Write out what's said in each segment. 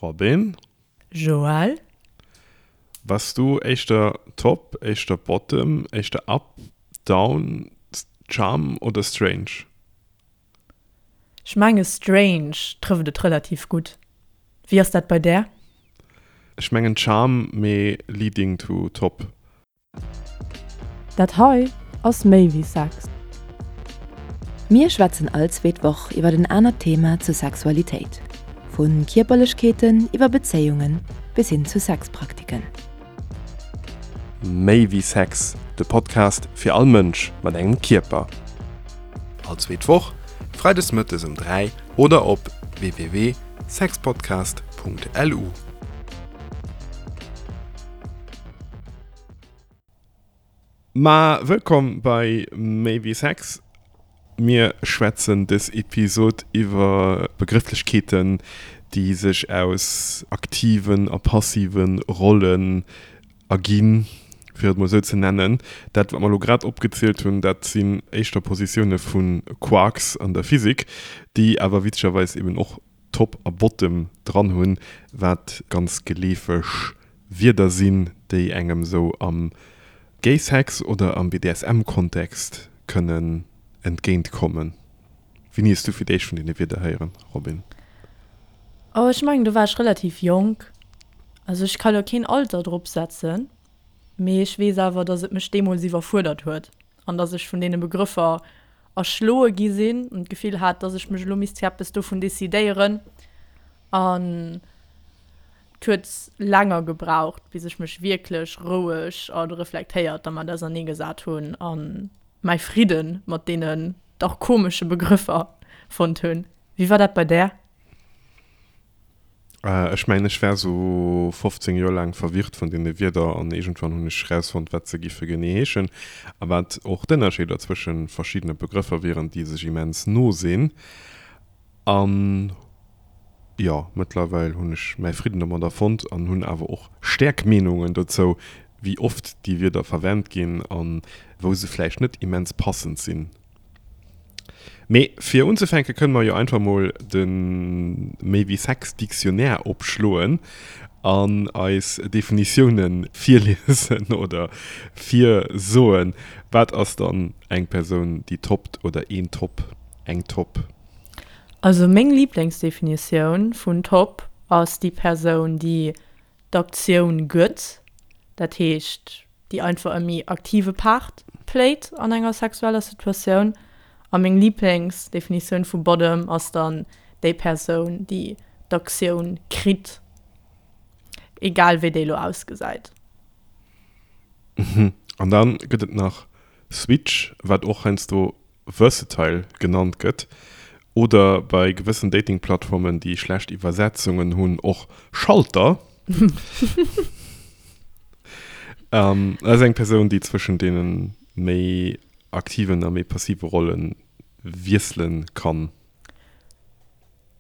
Robin? Joël? Bass du éischter Top, éischter Bottom, éischter Up, Down, Charm oder Strange? Ech menge Strange trëfft et relativ gutt. Wéi ass dat bei där? Ech mengen Charm, mee leading to Top. Dat hei ass méi wéi Sex. Mir schwätzen all zweet Woch iwwer en anert Thema zur Sexualitéit, vu Kierperlechkeeten iwwer Bezéiunge bis hin zu Sexpraktiken. Méi wéi Sex, de Podcast fir all Mënsch mat engem Kierper. All zweet Woch, freides mëttes um 3 oder op www.sexpodcast.lu. Ma wëllkomm bei Méi wéi Sex. Mir schwätzen dës Episod iwwer Begrëfflechkeeten, déi sech aus aktiven a passive Rollen erginn, fir et mol esou ze nennen. Dat, wat mer elo grad opgezielt hunn, dat sinn éischter Positioune vu Quarks an der Physik, déi awer witzegerweis eben och Top a Bottom dran hunn, wat ganz geleefeg Wierder sinn, déi engem sou am Gay-Sex oder am BDSM-Kontext kënnen entgéint kommen. Wéini hues du fir d'éischt vun deene Wierder héieren, Robin? Oh, ech mengen do war ech relativ jonk. Also ech ka lo keen Alter drop setzen, mee ech weess awer, dass et mech deemools iwwerfuerdert huet an dass ech vun deene Begrëffer erschloe gi sinn an d'Gefill hat, dass ech mech elo misst fir eppes dovun decidéieren. An et huet länger gebraucht, bis ech mech wierklech roueg a reflektéiert dermat auserneegesat hunn a mäi Fridde mat deenen dach komesche Begrëffer fonnt hunn. Wéi war dat bei där? Ech mengen, ech war sou 15 Joer laang verwirrt vun deene Wierder an iergendwann hunn ech rausfonnt, wat se giffe genee heeschen a wat och d'Ënnerscheeder zwësche verschiddene Begrëffer wieren, déi sech immens no sinn. An jo, mëttlerweil hunn ech mäi Fridden domadder fonnt an hunn awer och stäerk Meenungen dozou, wéi oft déi Wierder verwent ginn a wou se vläicht net immens passend sinn. Mee fir unzefänke kënne mer jo einfach mol de Méi wéi Sex Dictionnaire opschloen an eis Definitioune virliesen oder virsoen. Wat ass dann eng Persoun déi toppt oder een Top, eng Top? Also meng Liblingsdefinitioun vun Top ass déi Persoun déi d'Aktioun gëtt, dat heescht déi einfach e méi aktive Part playt an enger sexueller Situatioun. A meng Liblingsdefinitioun vu Bottom ass dann déi Persoun, déi d'Aktioun kritt, egal wéi déi elo ausgesäit. Mhm. An dann gëtt et nach Switch, wat och heiansdo versatile genannt gëtt, oder bei gewëssen Dating-Plattformen, déi schlecht Iwwersetzungen hunn, och Schalter. Dat ass eng Persoun, déi zwëschen deene méi aktiven a méi passive Rolle wiessele kann.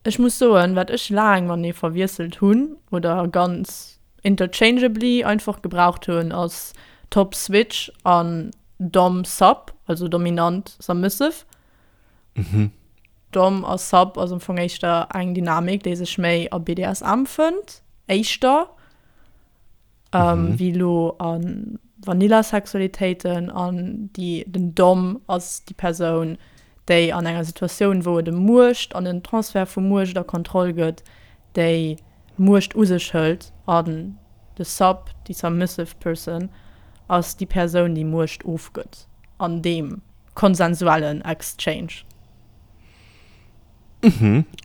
Ech muss soen, wat ech laang matenee verwiesselt hunn oder ganz interchangeably einfach gebraucht hunn, ass Top Switch an Dom Sub, also dominant submissive. Dom a Sub ass am Fong éischter eng Dynamik, déi sech méi a BDSM fënnt, éischter. wéi elo a Vanilla-Sexualitéiten an déi, den Dom ass déi Persoun, déi an enger Situatioun, wou et ëm Muecht an en Transfert vu Muecht a Kontroll gëtt, déi d'Muecht u sech hëlt an de Sub, déi submissive person, ass déi Persoun, déi Muecht ofgëtt an deem konsensuellen Exchange.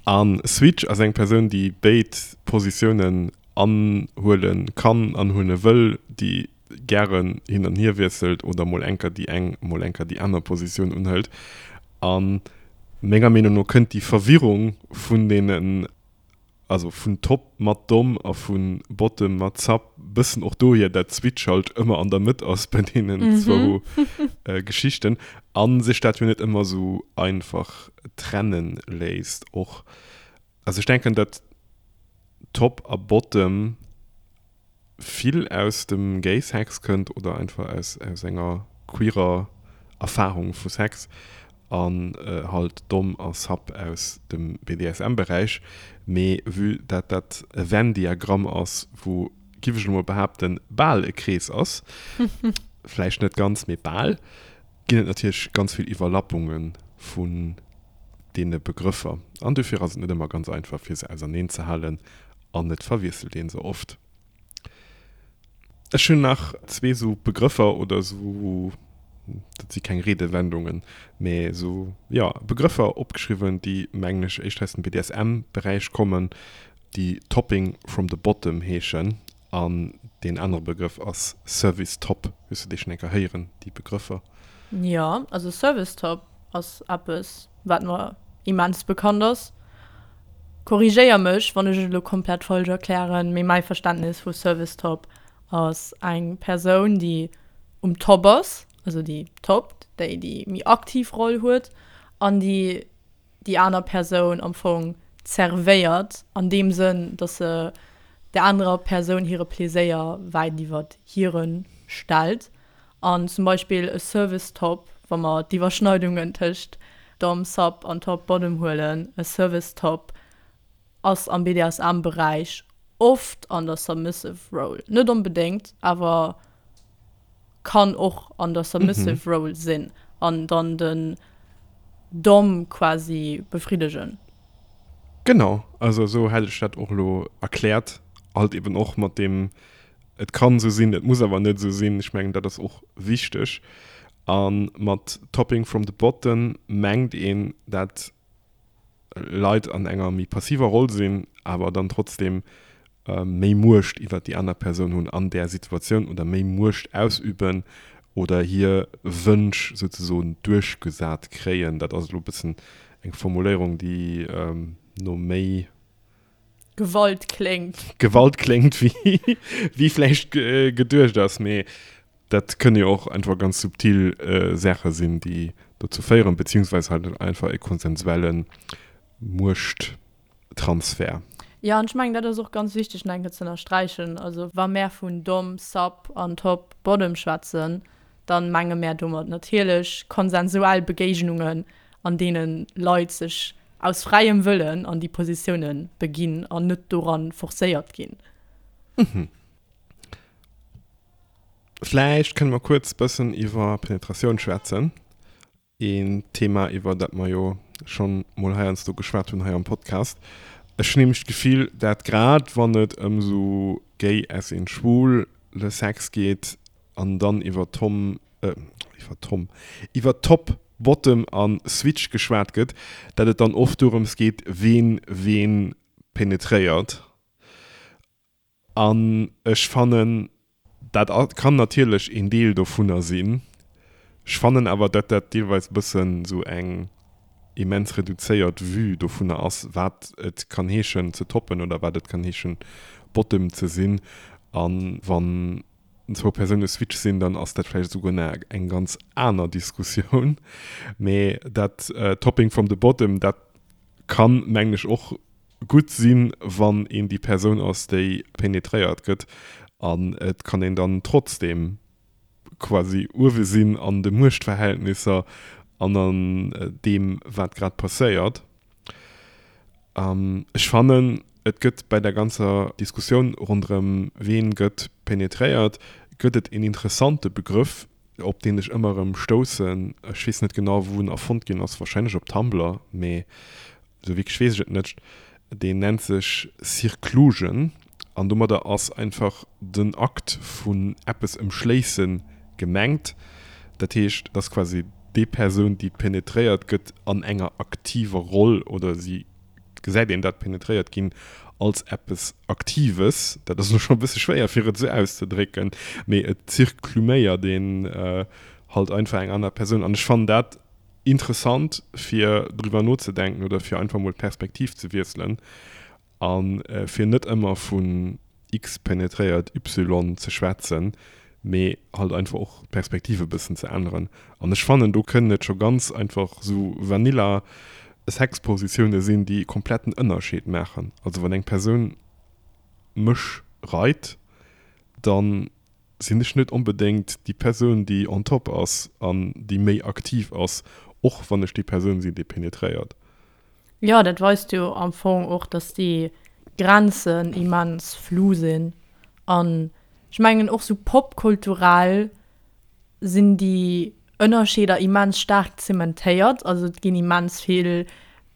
A Switch ass eng Persoun, déi béid Positiounen anhuele kann, anhuele wëll, déi gären hin an hier wiesselt oder mol enker déi eng, mol enker déi aner Positioun unhëlt. A menger Meenung no kënnt déi Verwirrung vun deenen, also vun Top mat Dom a vu Bottom mat Sub bëssen och dohier, dat Switch halt ëmmer an der Mëtt ass bei deenen zwou Geschichten a sech dat jo net ëmmer esou einfach trenne léisst och. Also ech denken, dat Top a Bottom vill aus dem Gay Sex kënnt oder einfach aus, aus enger queerer Erfahrung vu Sex. An halt Dom a Sub aus dem BDSM-Beräich. Mee vue dat dat e Venn-Diagramm ass, wou, giff ech elo mol behaapten, bal e Krees ass, vläicht net ganz, mee bal, ginn et natierlech ganz vill Iwwerlappunge vun deene Begrëffer. An dofir ass et net ëmmer ganz einfach, fir se auserneenzehalen an et verwiesselt ee se oft. Ech hunn nach zwee sou Begrëffer oder sou, dat si keng Redewendungen, mä sou, jo, Begrëffer opgeschriwwen, déi, mengen ech, éischter aus dem BDSM-Beräich kommen, déi Topping from the bottom heeschen. An deen anere Begrëff ass Service Top. Hues du déi schonn eng Kéier héieren, déi Begrëffer? Jo, also Service Top ass eppes, wat mer immens bekannt ass. Korrigéier mech, wann ech et elo komplett falsch erklären, mee mäi Verständnis vu Service Top ass eng Persoun, déi um Top ass, also déi toppt, déi déi méi aktiv Roll huet an déi déi aner Persoun am Fong zervéiert, an deem Sënn, dass se der anerer Persoun hire Pleséier wäit iwwert hire stellt. An zum Beispill e Service Top, wa mer d'Iwwerschneidungen tëscht Dom, Sub an Top, Bottom huelen, e Service Top ass am BDSM-Beräich oft an der Submissive Role. Net onbedéngt, awer kann och an der Submissive Role sinn an dann den Dom quasi befriddegen. Genau, also esou hätt ech dat och elo erkläert, halt eben och mat deem Et kann esou sinn, et muss awer net esou sinn. Ech mengen, dat ass och wichteg. A mat Topping from the bottom mengt een, dat Leit an enger méi passiver Roll sinn, awer dann trotzdeem méi Muecht iwwert déi aner Persoun hunn an där Situatioun oder méi Muecht ausüben oder hir Wënsch souzesoen duerchgesat kréien. Dat ass elo e bëssen eng Formuléierung, déi no méi. Gewalt kléngt. Gewalt kléngt, wéi vläicht geduecht ass, mee dat kënne jo och einfach ganz subtil Saache sinn, déi dozou féieren, beziehungsweise halt einfach e konsensuelle Muechttransfer. Jo, an ech mengen, dat ass och ganz wichteg nach eng Kéier ze ënnersträichen. Also wa mär vun Dom, Sub an Top, Bottom schwätzen, da menge mär domat natierlech konsensuell Begéignungen, an deene Leit sech aus fräiem Wëllen an déi Positioune beginn an net doran forcéiert ginn. Mhm. Vläicht kënne mer kuerz bëssen iwwer Penetratioun schwätzen. Een Thema, iwwer dat mer jo schonn mol heiansdo geschwat hunn hei am Podcast. Ech hunn nämlech d'Gefill, dat grad wann et ëm esou gay as in schwul le Sex geet an dann iwwer Tom, iwwer Tom, iwwer Top, Bottom a Switch geschwat gëtt, dat et dann oft dorëms geet, ween ween penetréiert. An ech fannen, dat kann natierlech een Deel dovunner sinn, ech fannen awer, dat dat deelweis e bëssen esou eng immens reduzéiert Vue dovunner ass, wat et kann heeschen ze toppen oder wat et kann heeschen Bottom ze sinn. A wann zwou Persoune Switch sinn, dann ass dat vläicht esouguer nach eng ganz aner Diskussioun. Mee dat Topping from the bottom, dat kann, mengen ech, och gutt sinn, wann een déi Persoun ass, déi penetréiert gëtt. An et kann een dann trotzdeem quasi uewe sinn an de Muechtverhältnisser an an deem, wat grad passéiert. Ech fannen, et gëtt bei der ganzer Diskussioun ronderëm ween gëtt penetréiert, gëtt et een interessante Begrëff, op deen ech ëmmer erëm stoussen. Ech weess net genau, wou en erfonnt ginn ass, warscheinlech op Tumblr, mee esou wierklech weess ech et net. Deen nennt sech Circlusion an domadder ass einfach den Akt vun eppes ëmschléisse gemengt. Dat heescht, et ass quasi déi Persoun, déi penetréiert gëtt, an enger aktiver Roll oder si gesäit een dat penetréiert ginn als eppes Aktives. Dat ass elo scho e bësse schwéier, fir et esou auszedrécken, mee et zirkluméiert een halt einfach eng aner Persoun. An ech fannen dat interessant, fir driwwer nozedenken oder fir einfach mol d'Perspektiv ze wiesselen. A fir net ëmmer vun X penetréiert Y ze schwätzen, mee halt einfach och d'Perspektiv e bëssen ze änneren. An ech fannen, do kënnen et scho ganz einfach sou vanilla Sexpositioune sinn, déi e kompletten Ënnerscheed maachen. Also wann eng Persoun mech reit, dann sinn ech net onbedéngt déi Persoun, déi on top ass an déi méi aktiv ass. Och wann ech déi Persoun sinn, déi penetréiert. Jo, dat weist jo am Fong och, dass déi Grenzen immens flou sinn. An ech mengen och sou popkulturell sinn déi Ënnerscheeder immens staark zementéiert. Also et ginn immens vill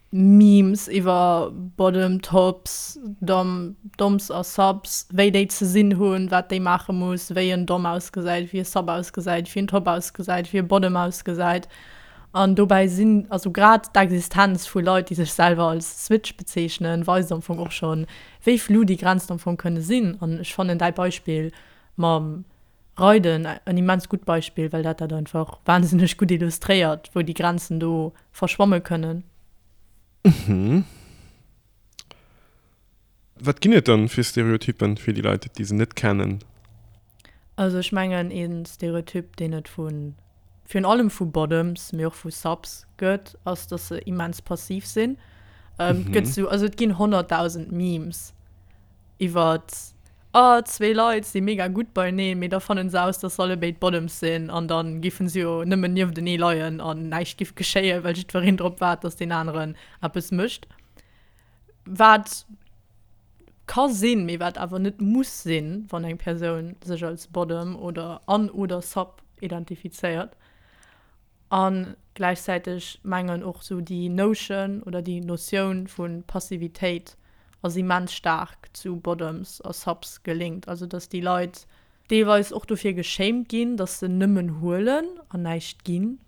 Memes iwwer Bottom, Tops, Dom, Doms a Subs, wéi déi ze sinn hunn, wat déi maache muss, wéi en Dom ausgesäit, wéi e Sub ausgesäit, wéi en Top ausgesäit, wéi e Bottom ausgesäit. An dobäi sinn, also grad d'Existenz vu Leit, déi sech selwer als Switch bezeechnen, weist am Fong och schonn, wéi flou déi Grenzen am Fong kënne sinn. An ech fannen däi Beispill mam Reiden en immens gutt Beispill, well dat dat einfach wahnsinneg gutt illustréiert, wou déi Grenzen do verschwamme kënnen. Mhm. Wat ginn et dann fir Stereotypen, fir déi Leit, déi se net kennen? Also ech mengen ee Stereotyp, deen et vu virun allem vu Bottoms, mee och vu Subs gëtt, ass, dass se immens passiv sinn. Et gëtt sou, also et ginn 100.000 Memes iwwert, oh zwee Leit si mega gutt beieneen, mee da fannen se aus, dass se allebéid Bottoms sinn an da giffen se jo nëmmen nieftenee leien an näischt giff geschéien, well jiddwereen drop waart, dass deen aneren eppes mécht. Wat ka sinn, mee wat awer net muss sinn, wann eng Persoun sech als Bottom oder an oder Sub identifizéiert. A gläichzäiteg mengen och sou déi Notion oder déi Notioun vu Passivitéit ass immens staark zu Bottoms a Subs gelinkt. Also datt déi Leit deelweis och dofir geshamed ginn, datt se nëmmen huelen an näischt ginn.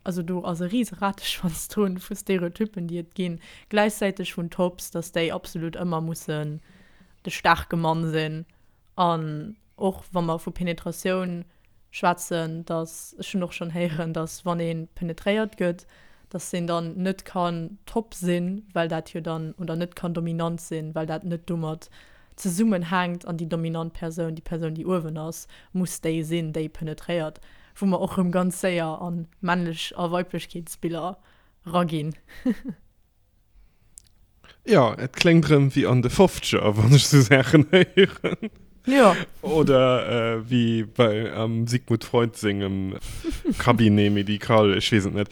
Also do ass e rise Rateschwanz drun vu Stereotyppen, déi et ginn. Gläichzäiteg vun Tops, datt déi absolut ëmmer mussen de staarke Mann sinn. An och wa mer vu Penetratioun schwätzen, datt, ech hunn och schonn héieren, datt wann ee penetréiert gëtt, datt een dann net kann top sinn, well dat jo dann, oder net kann dominant sinn, well dat net domat zesummenhänkt an déi dominant Persoun, déi Persoun, déi uewen ass, muss déi sinn, déi penetréiert, wou mer och rëm ganz séier an Männlech a Weiblechkeetsbiller raginn. Jo, et kléngt rëm wéi an de Fofzeger, wann ech sou Saachen héieren. Jo. Oder wéi bei am Sigmund Freud sengem Cabinet médical, ech weess et net.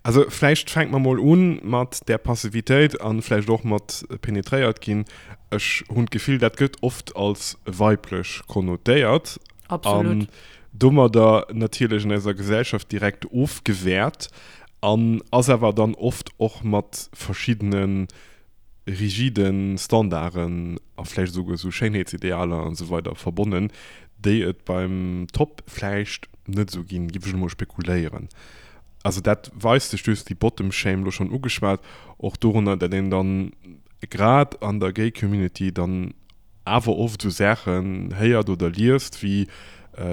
Also vläicht fänke mer mol un mat där Passivitéit an vläicht och mat penetréiert ginn. Ech hunn d'Gefill, dat gëtt oft als weiblech konnotéiert. Absolut. An domadder natierlech an eiser Gesellschaft direkt ofgewäert an ass awer dann oft och mat verschiddene rigide Standarden a vläicht esouguer esou Schéinheetsidealer an esou weider verbonnen, déi et beim Top vläicht net esou ginn, géif ech elo mol spekuléieren. Also dat weist sech, du hues déi Bottom Shame elo schonn ugeschwat, och dorunner, datt een dann grad an der Gay Community dann awer oft esou Saachen héiert oder liest wéi,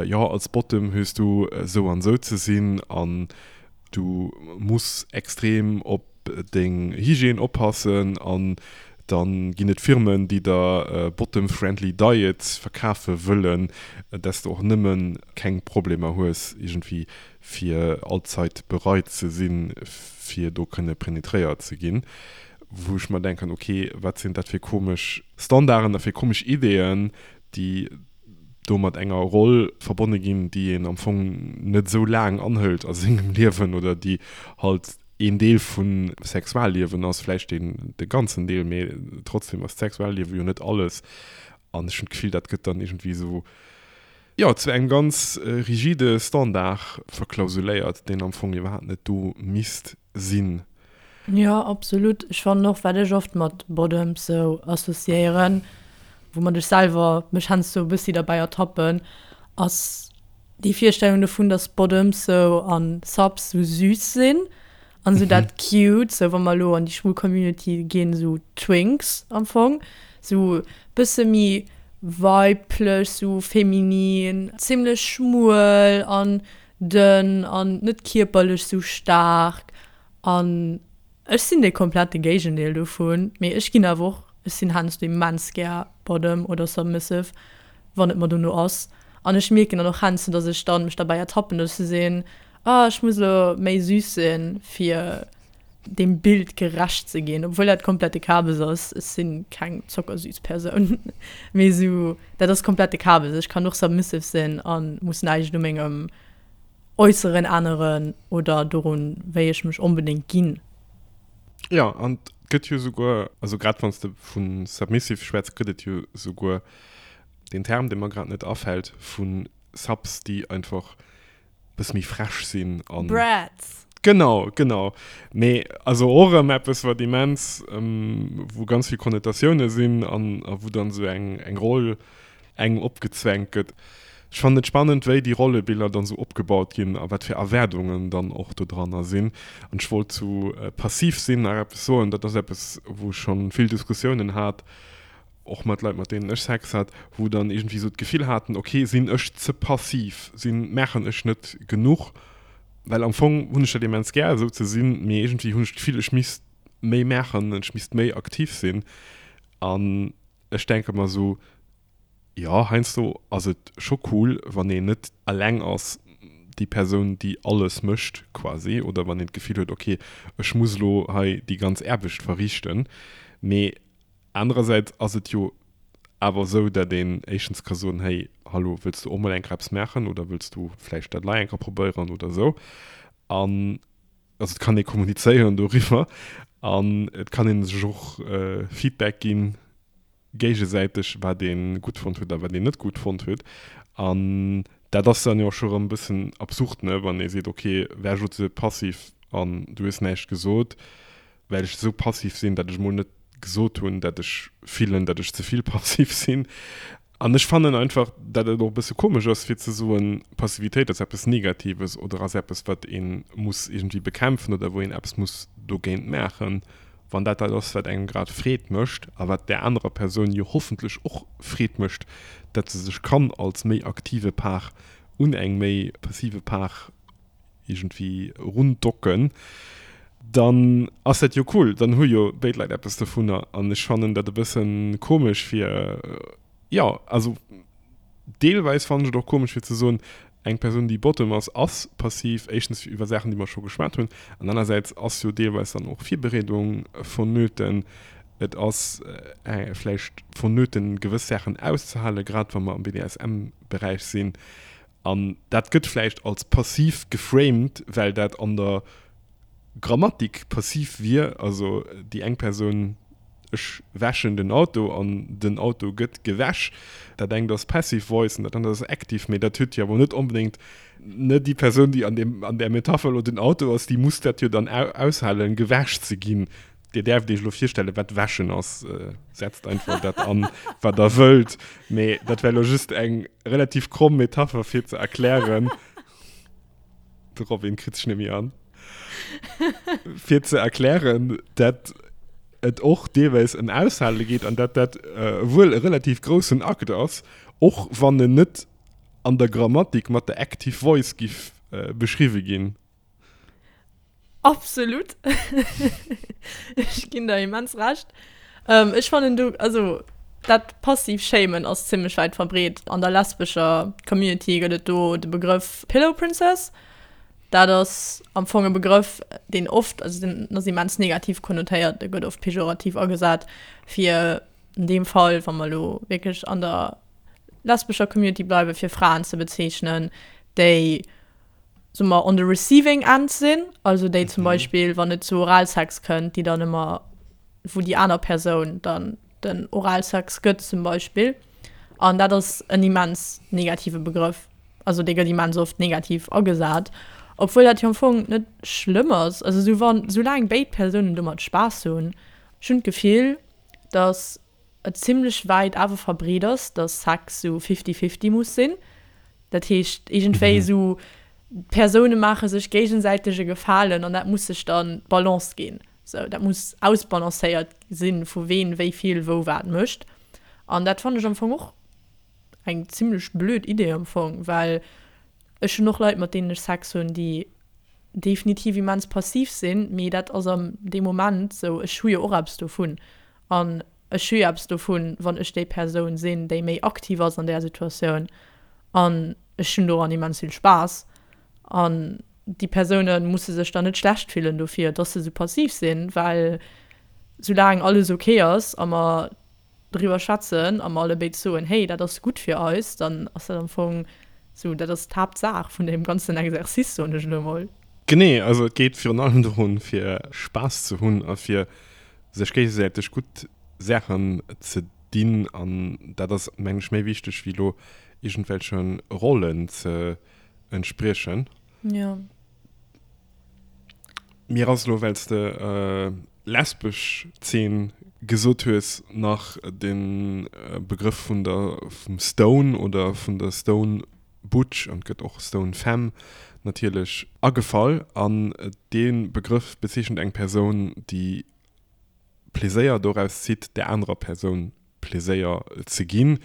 jo als Bottom hues du esou an esou ze sinn an du muss extrem op deng Hygiène oppassen an dann ginn et Firmen déi der bottom friendly diets verkafe wëllen, dass de och nëmmen keng Problemer hues iergendwéi fir allzeit bereit ze sinn fir do kënne penetréiert ze ginn, wou ech mer denken, ok wat sinn dat fir komesch Standarden a fir komesch Ideeën déi do mat enger Roll verbonne ginn, déi een am Fong net esou laang anhëlt a sengem Liewen oder déi halt een Deel vum Sexualliewen ass, vläicht deen de ganzen Deel, mee trotzdem ass d'Sexualliewe jo net alles. An ech hunn d'Gefill, dat gëtt dann iergendwéi esou, jo, zu engem ganz rigide Standard verklausuléiert, deen am Fong iwwerhaapt net do misst sinn. Jo, absolut. Ech fannen och, wat ech oft mat Bottoms sou associéieren, woumat ech selwer mech heiansdo e bëssi derbäi ertappen, ass déi Virstellung dovun, dass Bottoms sou an Subs sou süß sinn an sou dat cute, sou wa mer elo an déi schwul Community ginn, sou Twinks am Fong, sou bësse méi weiblech, sou feminin, zimlech schmuel an dënn an net kierperlech sou staark An ech sinn de komplette Géigendeel dovun, mee ech ginn awer och, ech sinn heiansdo immens gär Bottom oder Submissive, wann et mer dono ass. An ech mierken dann och heiansdo, dass ech dann mech derbäi ertappen, dass ech sou sinn, ah ech muss elo méi süß sinn, fir deem Bild gerecht ze ginn, obwuel dat komplette Kabes ass. Ech si keng zockersüß Persoun, mee sou dat ass komplette Kabes. Ech kann och submissive sinn a muss näischt u mengem. Äusseren änneren oder dorun, wéi ech mech onbedéngt ginn. Jo, an et gëtt jo souguer, also grad wann s de vu submissive schwätz, gëtt et jo souguer deen Term, dee mer grad net afält, vu Subs, déi einfach e bësse méi frech sinn an. Brats! Genau, genau. Mee also och erëm eppes, wat immens, wou ganz vill Konnotatioune sinn an a wou dann esou eng eng Roll engem opgezwängt gëtt. Ech fannen et spannend, wéi déi Rollebiller dann esou opgebaut ginn a wat fir Erwaardungen dann och do dranner sinn. An ech wollt zu passiv sinn nach eppes soen. Dat ass eppes, wou ech schonn vill Diskussiounen hat, och mat Leit, mat deenen ech Sex hat, wou dann iergendwéi esou d'Gefill haten, ok, sinn ech ze passiv, sinn, maachen ech net genuch? Well am Fong hunn ech dat immens gär, esou ze sinn, mee iergendwéi hunn ech d'Gefill, ech misst méi maachen, ech misst méi aktiv sinn. An ech denke mer esou, jo, heiansdo ass et scho cool, wann een net eleng ass, déi Persoun, déi alles mécht quasi, oder wann een d'Gefill huet, ok, ech muss elo hei déi ganz Aarbecht verriichten. Mee Anerersäits ass et jo awer esou, dat een éischtens ka soen, hey, hallo, wëlls du och mol eng Kéier eppes maachen oder wëlls du vläicht dat lei eng Kéier probéieren oder esou. An also et kann ee kommunizéieren doriwwer an et kann ee sech och Feedback ginn, géigesäiteg, wat ee gutt fonnt huet a wat een net gutt fonnt huet. An dat ass dann jo och scho rëm e bëssen absurd, ne, wann ee seet, okay, war ech elo ze passiv an du hues näischt gesot, well ech esou passiv sinn, dat ech mol net gesot hunn, dat ech fillen, dat ech ze vill passiv sinn. An ech fannen einfach, dat et och e bësse komesch ass, fir ze soen, Passivitéit ass eppes Negatives oder ass eppes, wat ee muss iergendwéi bekämpfen oder wou een eppes muss dogéint maachen, wann dat dat ass, wat engem grad Freed mécht a wat där anerer Persoun jo hoffentlech och Freed mécht, dat se sech kann als méi aktive Part un eng méi passive Part iergendwéi rundocken, dann ass dat jo cool, dann hu jo béid Leit eppes dovunner. An ech fannen dat e bësse komesch fir, jo, also deelweis fannen ech et och komesch fir ze soen, eng Persoun déi Bottom ass, ass passiv, éischtens iwwer Saachen déi mer scho geschwat hunn, an anersäits ass jo deelweis dann och Virbereedung vonnöten, et ass vläicht vonnöten gewëss Saachen auszehalen, grad wa mer am BDSM-Beräich sinn. An dat gëtt vläicht als passiv geframed, well dat an der Grammatik passiv wier, also déi eng Persoun, ech wäschen den Auto an den Auto gëtt gewäsch. Dat engt ass passive voice an dat anert ass active, mee dat huet jo awer net onbedéngt, ne, déi Persoun, déi an deem, an där Metapher elo den Auto ass, déi muss dat jo dann aushalen, gewäsch ze ginn. Dir däerft Iech elo virstellen, wat wäschen ass. Setzt einfach dat an, wat Der wëllt. Mee dat war elo just eng relativ kromm Metapher, fir ze erklären, de Robin kritt sech net méi an, fir ze erklären, dat et och deelweis ëm Aushale geet an dat dat wuel e relativ groussen Akt ass, och wann en net an der Grammatik mat der Active Voice giff beschriwwe ginn. Absolut. Ech ginn der immens Recht. Ähm, ech fannen du, also dat passiv Shamen ass zimmlech wäit verbreet. An der lesbescher Community gëtt et do de Begrëff Pillow Princess. Dat ass am Fong e Begrëff, deen oft, also deen ass immens negativ konnotéiert, dee gëtt oft pejorativ agesat, fir an deem Fall, wa mer elo wierklech an der lesbescher Community bleiwen, fir Fraen ze bezeechnen, déi soe mer, on the receiving end sinn, also déi zum Beispill, wann et zu Oralsex kënnt, déi dann ëmmer, wou déi aner Persoun dann den Oralsex gëtt zum Beispill. An dat ass en immens negative Begrëff. Also dee gëtt immens oft negativ agesat, obwuel dat jo am Fong net schlëmm ass. Also sou wann, soulaang béid Persounen domat Spaass hunn. Ech hunn d'Gefill, datt et zimlech wäit awer verbreet ass, dass Sex sou fifty-fifty muss sinn. Dat heescht iergendwéi esou, d'Persoune maache sech géigesäiteg e Gefalen an dat muss sech dann d'Balance ginn. Sou, dat muss ausbalancéiert sinn, vu ween wéi vill wou wat mécht. An dat fannen ech am Fong och eng zimlech blöd Idee am Fong, well ech hunn och Leit mat deenen ech Sex hunn, déi definitiv immens passiv sinn, mee dat ass am deem Moment sou, ech hu jo och eppes dovun. An ech hu jo eppes dovun, wann ech déi Persoun sinn, déi méi aktiv ass an där Situatioun. An ech hunn doran immens vill Spaass. An déi Persoune musse sech dann net schlecht fillen dofir, dass se esou passiv sinn, well soulaang alles ok ass a mer driwwer schwätzen a mer allebéid soen, hey, dat ass gutt fir eis, dann ass dat am Fong. Sou, dat ass d'Haaptsaach vun deem ganzen Exercice, soen ech elo mol. Genee, also et geet virun allem dorun, fir Spaass ze hunn a fir sech géigesäiteg gutt Saachen ze dinn. An dat ass, mengen ech, méi wichteg wéi elo iergendwelche Rollen ze entspriechen. Jo. Mir ass elo, well s de lesbesch Zeen gesot hues, nach de Begrëff vun der, vum Stone oder vun der Stone Butch, an et gëtt och Stone Femme natierlech, agefall. An dee Begrëff bezeechent eng Persoun, déi Pleséier doraus zitt, där anerer Persoun Pleséier ze ginn.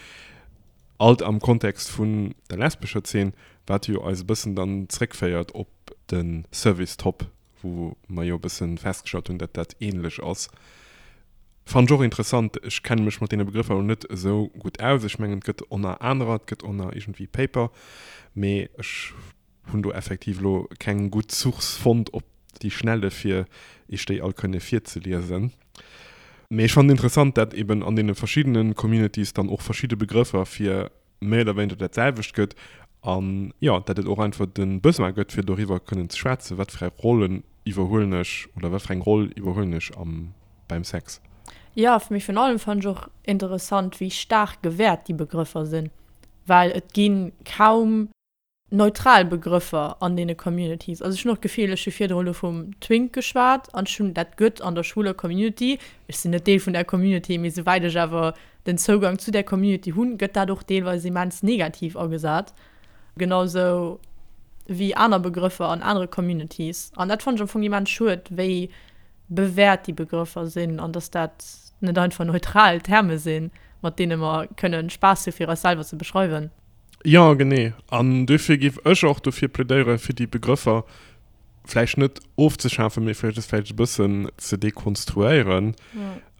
Alt am Kontext vun der lesbescher Zeen, wat jo eis e bëssen dann zréckféiert op de Service Top, wou mer jo e bësse festgestallt hunn, datt dat ähnlech ass. Fannen ech och interessant. Ech kenne mech mat deene Begrëffer elo net esou gutt aus. Ech mengen, et gëtt oner anerer, et gëtt oner iergendwéi Paper, mee ech Hunn do effektiv elo keng gutt Source fonnt op déi Schnelle fir iech déi all kënne virzeliesen. Mee ech fannen interessant dat eben an deene verschiddene Communities dann och verschidde Begrëffer fir méi oder wéineger dat selwecht gëtt an jo dat et och einfach de Besoin gëtt fir doriwwer kënnen ze schwätzen, wat fir eng Rollen iwwerhuelen ech oder wat fir eng Roll iwwerhuelen ech am beim Sex. Jo, mee virun allem fannen ech och interessant wéi staark gewäert déi Begrëffer sinn, well et gi kaum neutral Begrëffer an deene Communities. Also ech hunn och d'Gefill, ech hu virdru elo vum Twink geschwat an ech hunn, dat gëtt an der schwuler Community, ech sinn net Deel vun där Community, mee souwäit ech awer den Zougang zu där Community hunn, gëtt dat och deelweis immens negativ agesat, genau sou wéi aner Begrëffer an anere Communities. An dat fannen ech am Fong immens schued, wéi bewäert déi Begrëffer sinn an dass dat net einfach neutral Terme sinn, mat deene mer kënnen Spaass hu fir eis selwer ze beschreiwen. Jo, genee. An duerfir géif ech och dofir plädéieren, fir déi Begrëffer vläicht net ofzeschafen, mee vläicht es vläicht e bëssen ze dekonstruéieren.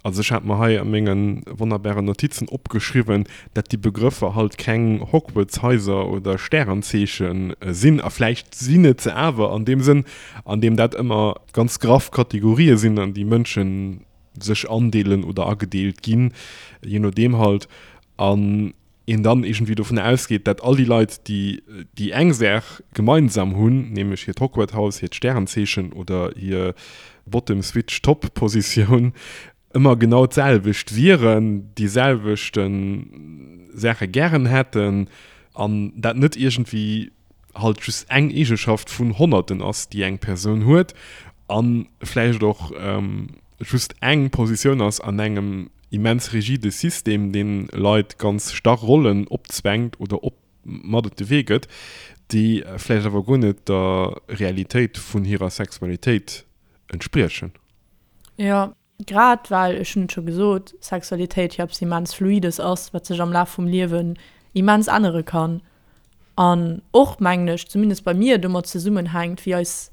Also ech hat mer hei a menge wonnerbaren Notizen opgeschriwwen, dat déi Begrëffer halt keng Hogwarts-Haiser oder Stärenzeeche sinn. A vläicht sinn et se awer an deem Sënn, an deem dat ëmmer ganz graff Kategorië sinn, an déi Mënsche sech andeelen oder agedeelt ginn, jee nodeem halt. An een dann iergendwéi dovun ausgeet, dat all déi Leit, déi déi eng Saach gemeinsam hunn, nämlech hiert Hogwarts-Haus, hiert Stärenzeechen oder hir Bottom-Switch-Top-Positioun, ëmmer genau d'selwecht wieren, déi selwechte Saache gären hätten an dat net iergendwéi halt just eng Eegeschaft vun Honnerten ass, déi eng Persoun huet a vläicht och just eng Positioun ass an engem immens rigide System, deen Leit ganz starr Rollen opzwängt oder op mat op de Wee gëtt, déi vläicht awer guer net der Realitéit vun hirer Sexualitéit entspriechen. Jo, grad well, ech hunn et scho gesot, Sexualitéit jo eppes immens Fluides ass, wat sech am Laf vum Liewen immens ännere kann an och, mengen ech, zumindest bei mir, domat zesummenhänkt, wéi eis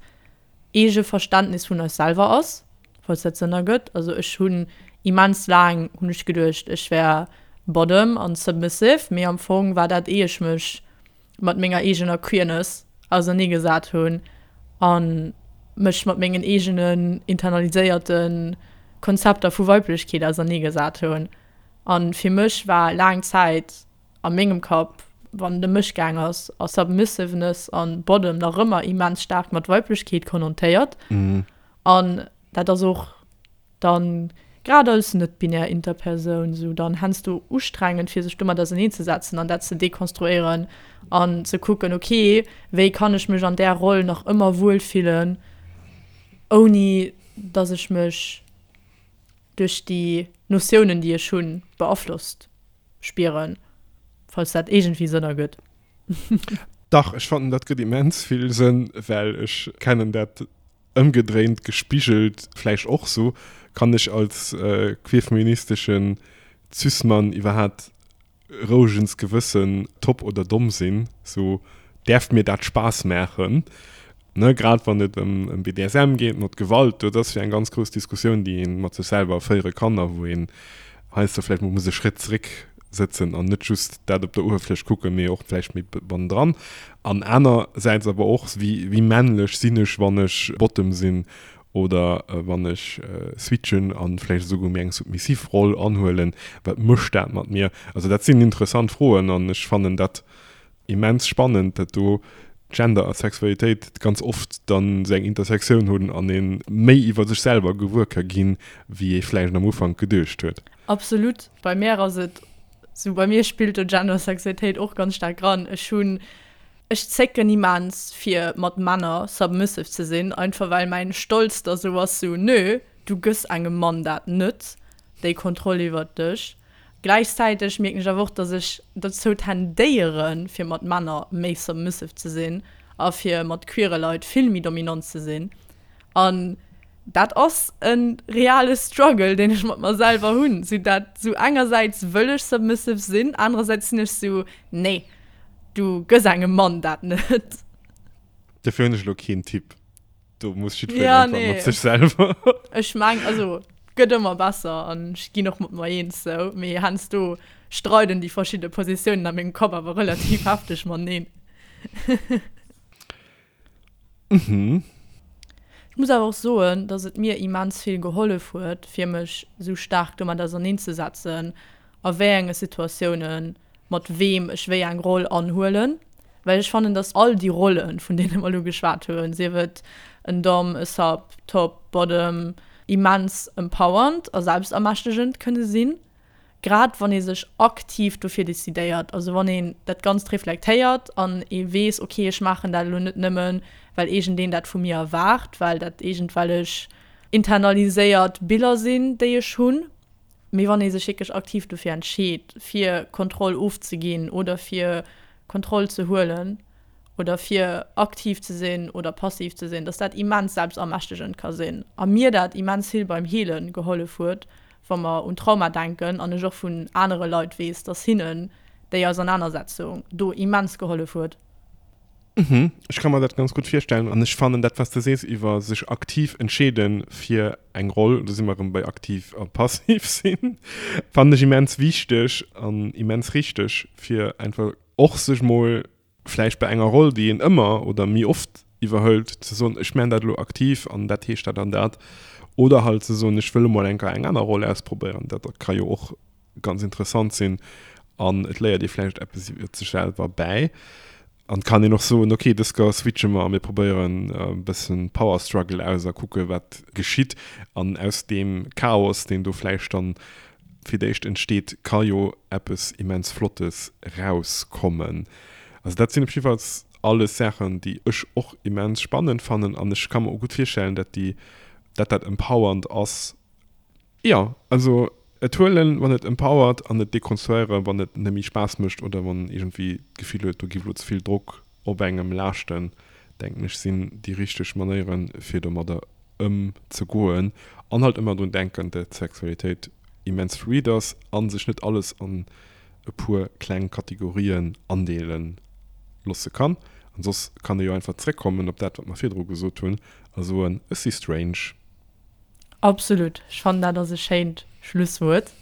eege Verständnis vun eis selwer ass, falls dat Sënn ergëtt. Also ech hunn immens laang hunn ech geduecht, ech wär Bottom an submissive, mee am Fong war dat ee ech mech mat menger eegener Queerness ausernee gesat hunn a mech mat mengen eegenen internaliséierte Konzepter vu Weiblechkeet ausernee gesat hunn. A fir mech war laang Zäit a mengem Kapp, wann et ëm mech gaang ass, ass Submissiveness an Bottom nach ëmmer immens staark mat Weiblechkeet konnotéiert. An dat ass och dann, grad als net-binär Interpersoun, sou dann heiansdo ustrengend, fir sech domat auserneenzesetzen an dat ze dekonstruéieren an ze kucken, okay, wéi kann ech mech an där Roll nach ëmmer wuelfillen, ouni dass ech mech duerch déi Notiounen, déi ech hunn, beaflosst spieren, falls dat iergendwéi Sënn ergëtt. Dach, ech fannen dat gëtt immens vill Sënn, well ech kennen dat ëmgedréint gespigelt vläicht och sou. Kann ech als queerfeministeschen Cis-Mann iwwerhaat rouegens Gewëssen top oder domm sinn, sou däerf mir dat Spaass maachen, ne, grad wann et ëm BDSM geet, mat Gewalt, dat ass jo eng ganz grouss Diskussioun, déi ee mat sech selwer féiere kann a wou een heiansdo vläicht mol muss e Schrétt zeréck sëtzen an net just dat op der Uewerfläch kucken, mee och vläicht méi bannendran. An anersäits awer och, wéi wéi männlech sinn ech, wann ech Bottom sinn Oder wann ech switchen an vläicht esouguer méi eng submissiv Roll anhuelen, wat mécht dat mat mir? Also dat sinn interessant Froen an ech fannen dat immens spannend, dat do Gender a Sexualitéit ganz oft dann esou eng Intersektioun hunn an ee méi iwwer sech selwer gewuer ka ginn, wéi ee vläicht am Ufank geduecht huet. Absolut. Bei mär ass et sou, bei mir spillt do Gender a Sexualitéit och ganz staark ran. Ech hunn, ech zécken immens fir mat Männer submissive ze sinn, einfach well mäin Stolz da sou ass, sou, nö, du gëss engem Mann dat net, déi Kontroll iwwert dech. Gläichzäiteg mierken ech awer och, dass ech dozou tendéieren, fir mat Männer méi submissive ze sinn a fir mat queere Leit vill méi dominant ze sinn. An dat ass e reale Struggle, deen ech mat mer selwer hunn. Sou dat, sou engersäits wëll ech submissive sinn, anerersäits sinn ech sou, nee, du gëss engem Mann dat net. Dofir hunn ech elo keen Tipp. Do muss jiddwereen ja, einfach nee. mat sech selwer. Ech meng, also gëtt ëmmer besser an ech ginn och mat mer eens sou, mee heiansdo streiden déi verschidde Positiounen a mengem Kapp awer relativ hefteg mateneen. Mhm. Ech muss awer och soen, dass et mir immens vill gehollef huet, fir mech sou staark domat auserneenzesetzen, a wéi enge Situatiounen mat weem ech wéi eng Roll anhuelen, well ech fannen, dass all déi Rollen, vun deene mer elo geschwat hunn, sief et en Dom, e Sub, Top, Bottom, immens empowernd a selbstermächtegend kënne sinn, grad wann ee sech aktiv dofir decidéiert, also wann een dat Ganzt reflektéiert an ee weess, ok, ech maachen dat elo net nëmmen, well iergendeen dat vu mir erwaart, well dat iergendwellech internaliséiert Biller sinn, déi ech hunn. Mee wann ee sech wierklech aktiv dofir entscheet, fir Kontroll ofzeginn oder fir Kontroll ze huelen oder fir aktiv ze sinn oder passiv ze sinn, dass dat immens selbstermächtegend ka sinn a mir dat immens vill beim Heele gehollef huet, wa mer un Trauma denken an ech och vun anere Leit weess, dass hinnen déi Ausernanersetzung do immens gehollef huet. Mhm, ech ka mer dat ganz gutt virstellen an ech fannen dat, wat s de sees iwwer sech aktiv entscheede fir eng Roll, do si mer erëm bei aktiv a passiv sinn, fannen ech immens wichteg an immens richteg, fir einfach och sech mol vläicht bei enger Roll, déi een ëmmer oder méi oft iwwerhëlt, ze soen, ech man dat elo aktiv an dat heescht dat an dat. Oder halt ze soen, ech wëll emol eng Kéier eng aner Roll ausprobéieren, dat ka jo och ganz interessant sinn an et léiert ee vläicht eppes iwwer sech selwer bäi. An et kann een och soen, ok, dës Kéier switche mer a mir probéieren e bëssen Power Struggle aus a kucke wat geschitt. An aus deem Chaos, deen do vläicht dann fir d'éischt entsteet, ka jo eppes immens Flottes rauskommen. Also dat sinn op jiddefalls alles Saachen, déi ech och immens spannend fannen an ech ka mer och gutt virstellen, dat déi, dat dat empowernd ass. Jo, also et huelen, wann et empowert an et dekonstruéieren, wann et net méi Spaass mécht oder wann een iergendwéi d'Gefill huet, do giff elo ze vill Drock op engem laaschten, denken ech, sinn déi richteg Manéieren, fir domadder ëmzegoen. An halt ëmmer drun denken, dat Sexualitéit immens fluid ass a sech net alles an e puer kleng Kategorien andeele losse kann. An soss kann ee jo einfach zréckkommen op dat, wat mer virdru gesot hunn a soen, ech si strange. Absolut, ech fannen dat ass e schéint Schlusswuert.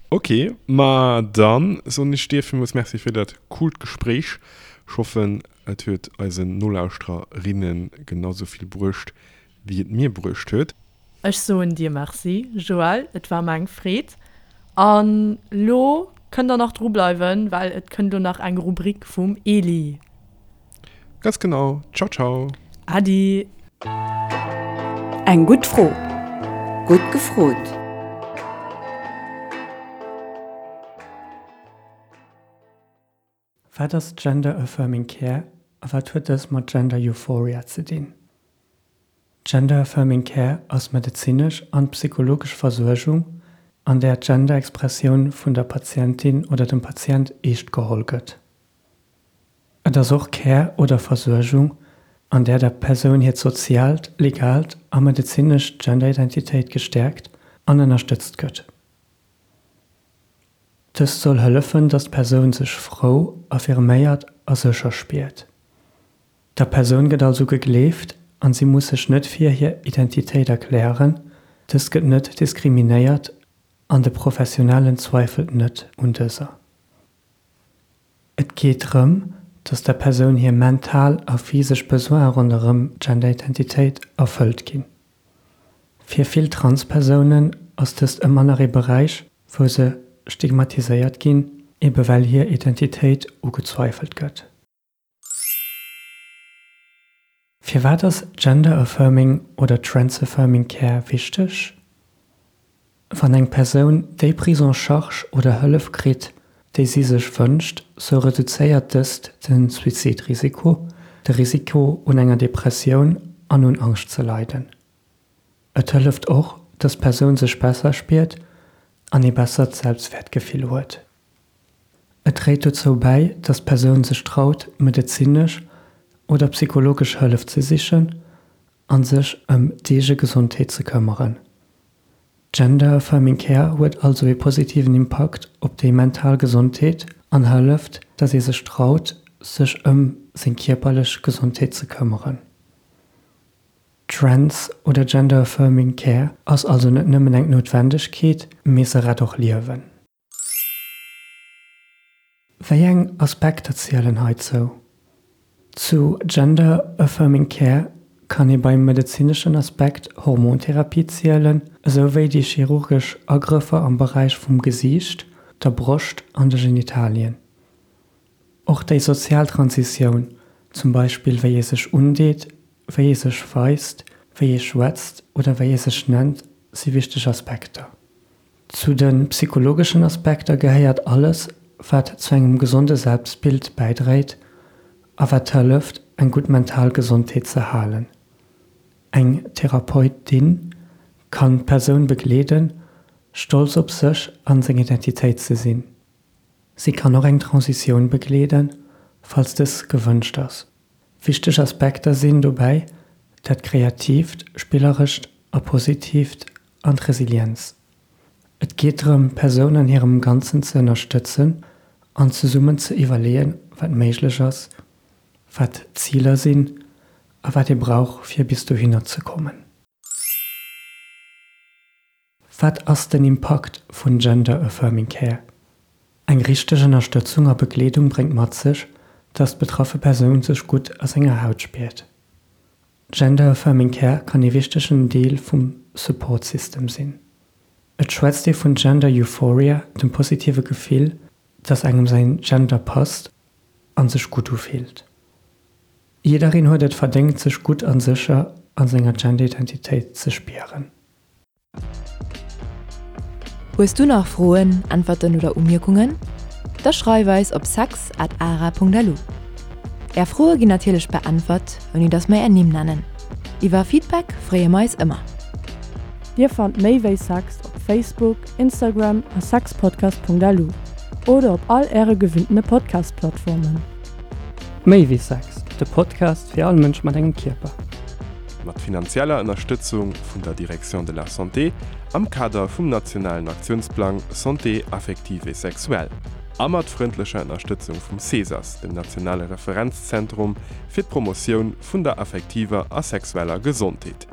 Ok, ma dann soen ech dir villmools Merci fir dat coolt Gespréich. Ech hoffen et huet eisen Nolauschtererinnen genau sou vill bruecht wéi et mir bruecht huet. Ech soen dir Merci Joël, et war mer eng Freed. An lo kënnt der nach dru bleiwen, well et kënnt lo nach eng Rubrik vum Eli. Ganz genau. Ciao ciao. Äddi. Eng gutt Fro. Gutt gefrot. Wat ass Gender Affirming Care a wat huet dës mat Gender Euphoria ze dinn? Gender Affirming Care ass medezinesch an psychologesch Versuergung, an där d'Gender-Expressioun vun der Patientin oder dem Patient eescht geholl gëtt. Et ass och Care oder Versuergung, an där der Persoun hiert soziaalt, legaalt a medezinescht Genderidentitéit gestäerkt an ënnerstëtzt gëtt. Dëst soll hëllefen, datt d'Persoun sech frou, affirméiert a sécher spiert. Der Persoun gëtt also gegleeft an si muss sech net fir hir Identitéit erklären, dëst gëtt net diskriminéiert an de Professionellen zweifelt net un dëser. Et geet drëm, dass der Persoun hir mental a physesch Besoine ronderëm d'Genderidentitéit erfëllt ginn. Fir vill Trans-Persounen ass dëst ëmmer nach ee Beräich, wou se stigmatiséiert ginn. ebe well hir Identitéit ugezweifelt gëtt. Firwat ass Gender-Affirming oder Trans-Affirming Care wichteg? Wann eng Persoun déi Prise en charge oder Hëllef kritt, déi si sech wënscht, sou reduzéiert dëst de Suizidrisiko, de Risiko un enger Depressioun an un Angscht ze leiden. Et hëlleft och, dass d'Persoun sech besser spiert an ee bessert Selbstwäertgefill huet. Et dréit dozou bäi, dass d'Persoun sech traut, medezinesch oder psychologesch Hëllef ze sichen a sech ëm d'eege Gesondheet ze këmmeren. Gender Affirming Care huet also ee positiven Impakt op déi mental Gesondheet an hëlleft, dass ee sech traut, sech ëm seng kierperlech Gesondheet ze këmmeren. Trans oder Gender Affirming Care ass also net nëmmen eng Noutwendegkeet, mee se rett och Liewen. Wéi eng Aspekter zielen heizou? Zu Gender Affirming Care kann ee beim medezineschen Aspekt Hormontherapie zielen, esou wéi déi chirurgesch Agrëffer am Beräich vum Gesiicht, der Broscht an de Genitalien. Och déi sozial Transitioun, zum Beispill wéi ee sech undeet, wéi ee sech weist, wéi ee schwätzt oder wéi ee sech nennt, si wichteg Aspekter. Zu de psychologeschen Aspekter gehéiert alles, wat zu engem gesonde Selbstbild bäidréit a wat hëlleft, eng gutt mental Gesondheet ze halen. Eng Therapeutin kann d'Persoun begleeden, stolz op sech an seng Identitéit ze sinn. Si kann och eng Transitioun begleeden, falls dës gewënscht ass. Wichteg Aspekter sinn dobäi dat Kreatiivt, Spillerescht a Positiivt an d'Resilienz. Et geet drëm, d'Persoun an hirem Ganzen ze ënnerstëtzen an zesummen ze iwwerleeën, wat méiglech ass, wat d'Ziler sinn a wat ee brauch, fir bis dohinner ze kommen. Wat ass den Impakt vun Gender Affirming Care? Eng richteg Ënnerstëtzung a Begleedung bréngt mat sech, dass d'betraffe Persoun sech gutt a senger Haut spiert. Gender Affirming Care kann ee wichtegen Deel vum Support System sinn. Et schwätzt ee vun Gender Euphoria, dem positive Gefill, dass engem säin Gender passt an sech gutt ufillt. Jiddereen huet et verdéngt sech gutt an sécher an senger Gender-Identitéit ze spieren. Hues du nach Froen, Äntwerten oder Umierkungen? Da schreif eis op sex at ara.lu. Är Froe ginn natierlech beäntwert, ouni dass mer är Nimm nennen. Iwwer Feedback freeë mer eis ëmmer. Dir fannt méi wéi Sex op Facebook, Instagram a sexpodcast.lu oder op all äre gewinntene Podcast-Plattformen. Méi wéi Sex, de Podcast fir all Mënsch mat engem Kierper. Mat finanzieller Ënnerstëtzung vun der Direction de la Santé am Kader vum nationalen Aktiounsplang Santé affective et sexuelle a mat frëndlecher Ënnerstëtzung vum CESAS, dem nationale Referenzzentrum fir d'Promotioun vun der affektiver a sexueller Gesondheet.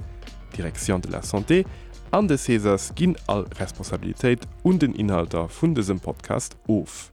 D'Direction de la Santé an de CESAS ginn all Responsabilitéit un den Inhalter vun dësem Podcast of.